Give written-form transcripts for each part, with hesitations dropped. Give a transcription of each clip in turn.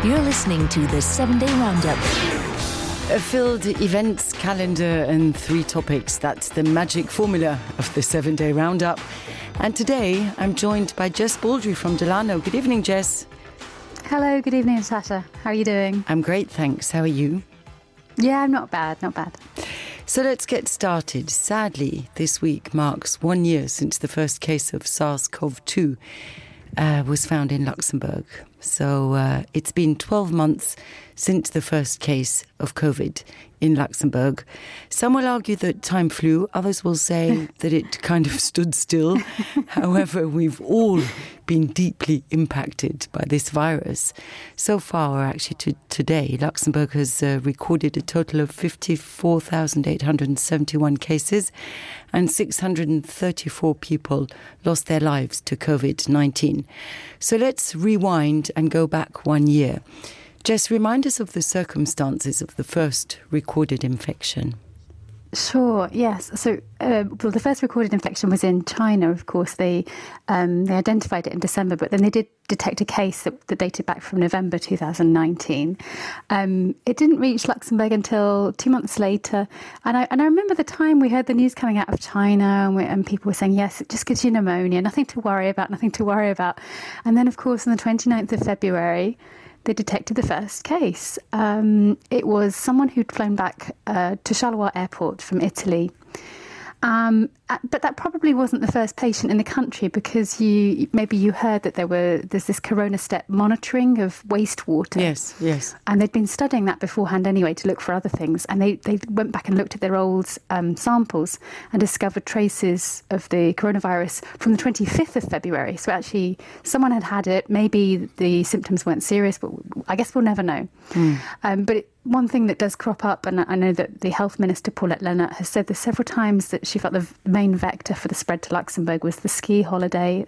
You're listening to the 7-Day Roundup. A filled events calendar and 3 topics. That's the magic formula of the 7-Day Roundup. And today I'm joined by Jess Baldry from Delano. Good evening, Jess. Hello, good evening, Natasha. How are you doing? I'm great, thanks. How are you? Yeah, I'm not bad. So let's get started. Sadly, this week marks 1 year since the first case of SARS-CoV-2 was found in Luxembourg. So it's been 12 months since the first case of COVID in Luxembourg. Some will argue that time flew. Others will say that it kind of stood still. However, we've all been deeply impacted by this virus. So far, actually, today, Luxembourg has recorded a total of 54,871 cases and 634 people lost their lives to COVID-19. So let's rewind and go back 1 year. Jess, remind us of the circumstances of the first recorded infection. Sure, yes. So the first recorded infection was in China, of course. They identified it in December, but then they did detect a case that dated back from November 2019. It didn't reach Luxembourg until 2 months later. And I remember the time we heard the news coming out of China and people were saying, yes, it just gives you pneumonia, nothing to worry about. And then, of course, on the 29th of February, they detected the first case. It was someone who'd flown back to Charleroi Airport from Italy. But that probably wasn't the first patient in the country, because maybe you heard that there's this Corona Step monitoring of wastewater. Yes. And they'd been studying that beforehand anyway to look for other things. And they went back and looked at their old samples and discovered traces of the coronavirus from the 25th of February. So actually, someone had it. Maybe the symptoms weren't serious, but I guess we'll never know. One thing that does crop up, and I know that the Health Minister, Paulette Leonard, has said this several times, that she felt the main vector for the spread to Luxembourg was the ski holiday.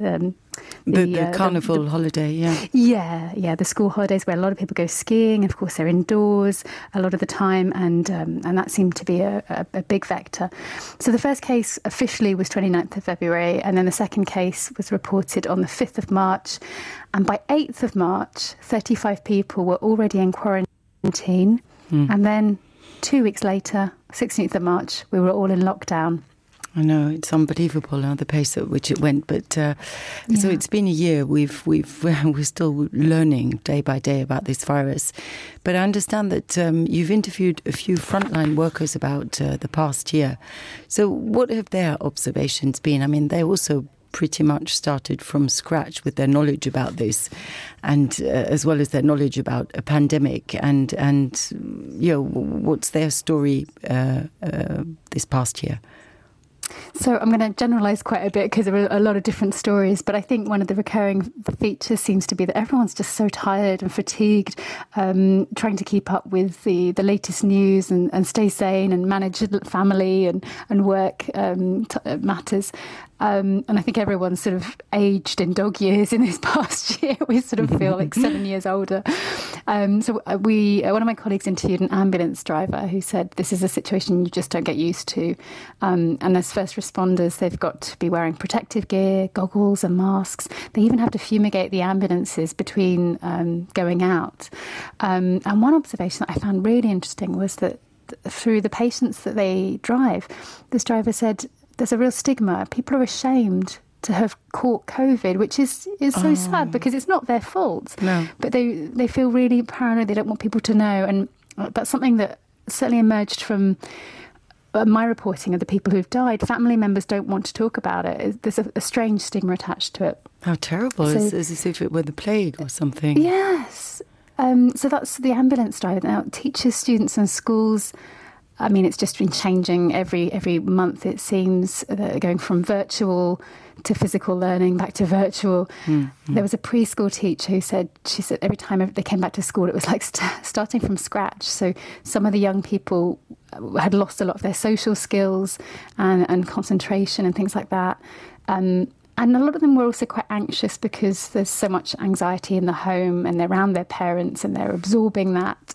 The carnival holiday, yeah. Yeah, the school holidays where a lot of people go skiing. Of course, they're indoors a lot of the time, and that seemed to be a big vector. So the first case officially was 29th of February, and then the second case was reported on the 5th of March. And by 8th of March, 35 people were already in quarantine. And then 2 weeks later, 16th of March, we were all in lockdown. I know, it's unbelievable the pace at which it went. But so it's been a year. We're still learning day by day about this virus. But I understand that you've interviewed a few frontline workers about the past year. So what have their observations been? I mean, they also pretty much started from scratch with their knowledge about this, and as well as their knowledge about a pandemic, and what's their story this past year? So I'm going to generalise quite a bit, because there are a lot of different stories, but I think one of the recurring features seems to be that everyone's just so tired and fatigued, trying to keep up with the latest news and stay sane and manage family and work matters. And I think everyone's sort of aged in dog years in this past year. We sort of feel like 7 years older. One of my colleagues interviewed an ambulance driver who said this is a situation you just don't get used to. And as first responders, they've got to be wearing protective gear, goggles and masks. They even have to fumigate the ambulances between going out. And one observation that I found really interesting was that through the patients that they drive, this driver said there's a real stigma. People are ashamed to have caught COVID, which is so sad, because it's not their fault. No. But they feel really paranoid. They don't want people to know. And that's something that certainly emerged from my reporting of the people who've died. Family members don't want to talk about it. There's a strange stigma attached to it. How terrible. It's as if it were the plague or something. Yes. So that's the ambulance driver. Now, teachers, students and schools, I mean, it's just been changing every month, it seems, going from virtual to physical learning, back to virtual. There was a preschool teacher she said every time they came back to school, it was like starting from scratch. So some of the young people had lost a lot of their social skills and concentration and things like that. And a lot of them were also quite anxious, because there's so much anxiety in the home and they're around their parents and they're absorbing that.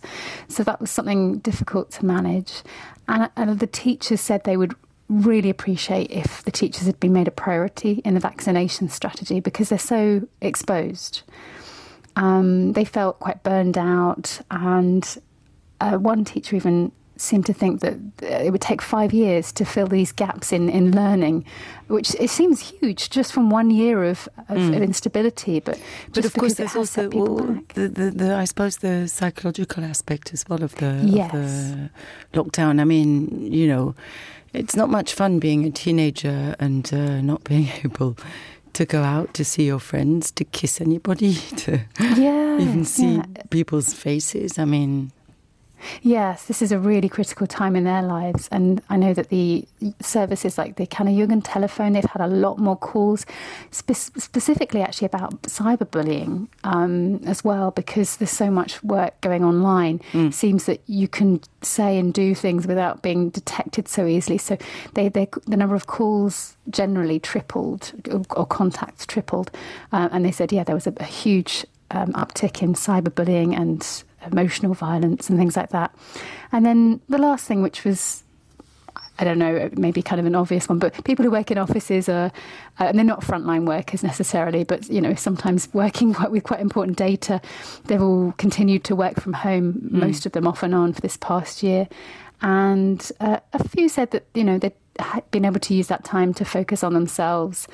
So that was something difficult to manage. And the teachers said they would really appreciate if the teachers had been made a priority in the vaccination strategy, because they're so exposed. They felt quite burned out, and one teacher even seemed to think that it would take 5 years to fill these gaps in learning, which it seems huge just from 1 year of instability. But of course, there's also I suppose the psychological aspect as well of the lockdown. I mean, you know, it's not much fun being a teenager and not being able to go out to see your friends, to kiss anybody, to even see people's faces. I mean, yes, this is a really critical time in their lives. And I know that the services like the Kanajugend telephone, they've had a lot more calls, specifically actually about cyberbullying as well, because there's so much work going online. It seems that you can say and do things without being detected so easily. So the number of calls generally tripled, or contacts tripled. And they said, there was a huge uptick in cyberbullying and emotional violence and things like that. And then the last thing, which was, I don't know, maybe kind of an obvious one, but people who work in offices are, and they're not frontline workers necessarily, but, you know, sometimes working with quite important data, they've all continued to work from home, most of them off and on for this past year. And a few said that, you know, they'd been able to use that time to focus on themselves.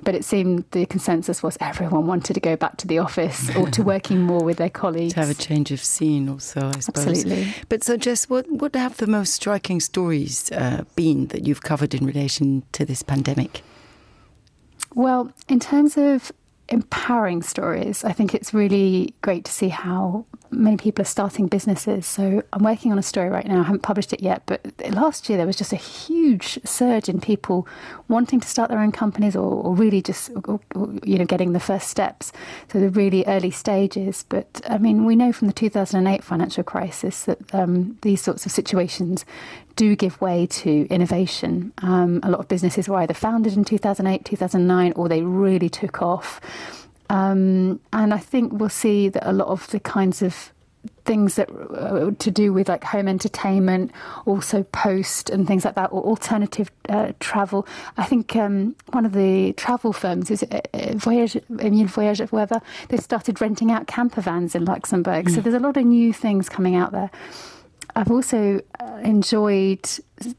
But it seemed the consensus was everyone wanted to go back to the office or to working more with their colleagues. To have a change of scene also, I suppose. Absolutely. But so, Jess, what have the most striking stories been that you've covered in relation to this pandemic? Well, in terms of empowering stories, I think it's really great to see how many people are starting businesses. So I'm working on a story right now. I haven't published it yet, but last year there was just a huge surge in people wanting to start their own companies or really just, you know, getting the first steps. So the really early stages. But I mean, we know from the 2008 financial crisis that these sorts of situations do give way to innovation. A lot of businesses were either founded in 2008, 2009, or they really took off. And I think we'll see that a lot of the kinds of things that to do with like home entertainment, also post and things like that, or alternative travel. I think one of the travel firms is Emile Voyage, whatever. They started renting out camper vans in Luxembourg. So there's a lot of new things coming out there. I've also enjoyed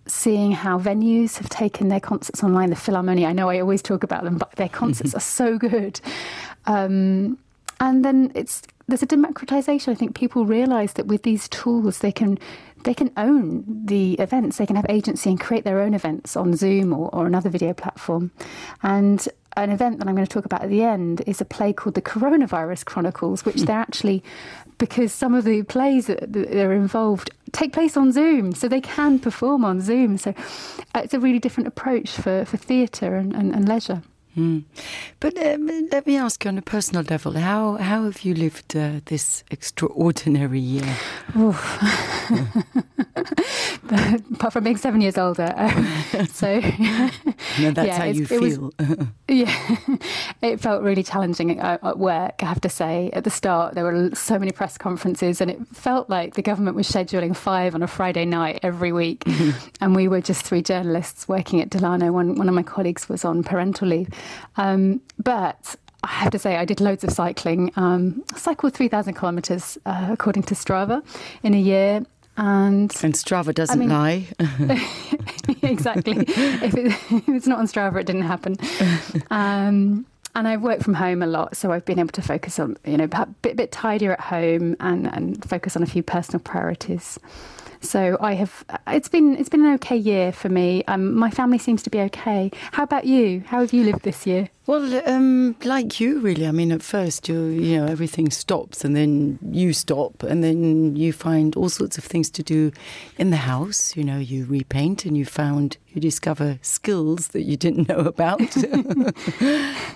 seeing how venues have taken their concerts online. The Philharmonie, I know I always talk about them, but their concerts are so good. And then there's a democratization. I think people realise that with these tools, they can own the events. They can have agency and create their own events on Zoom or another video platform. And an event that I'm going to talk about at the end is a play called The Coronavirus Chronicles, which they're actually, because some of the plays that are involved take place on Zoom, so they can perform on Zoom. So it's a really different approach for theatre and leisure. But let me ask you on a personal level, how have you lived this extraordinary year? Apart from being 7 years older. So no, that's how you feel. It felt really challenging at work, I have to say. At the start, there were so many press conferences, and it felt like the government was scheduling 5 on a Friday night every week. And we were just 3 journalists working at Delano. One of my colleagues was on parental leave. But I have to say, I did loads of cycling. I cycled 3,000 kilometres, according to Strava, in a year. And Strava doesn't lie. Exactly. If it's not on Strava, it didn't happen. And I work from home a lot, so I've been able to focus on, you know, a bit tidier at home and focus on a few personal priorities. So it's been an okay year for me. My family seems to be okay. How about you? How have you lived this year? Well, like you, really. I mean, at first, you know, everything stops, and then you stop, and then you find all sorts of things to do in the house. You know, you repaint, and you discover skills that you didn't know about.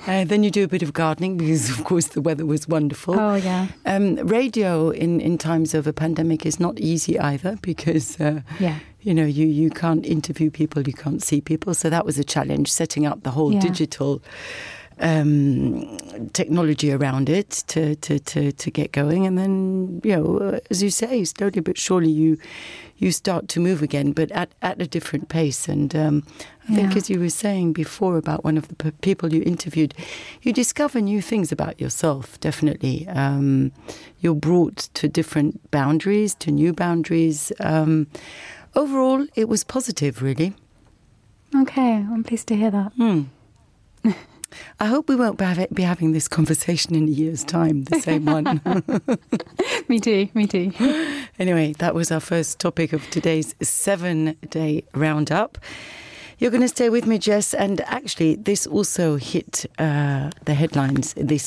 Then you do a bit of gardening because, of course, the weather was wonderful. Oh, yeah. Radio in times of a pandemic is not easy either because, you know, you can't interview people, you can't see people. So that was a challenge, setting up the whole digital technology around it to get going, and then as you say, slowly but surely you start to move again, but at a different pace. And I think, as you were saying before about one of the people you interviewed, you discover new things about yourself. Definitely, you're brought to different boundaries, to new boundaries. Overall, it was positive, really. Okay, I'm pleased to hear that. I hope we won't be having this conversation in a year's time, the same one. Me too. Anyway, that was our first topic of today's 7-day roundup. You're going to stay with me, Jess, and actually this also hit the headlines this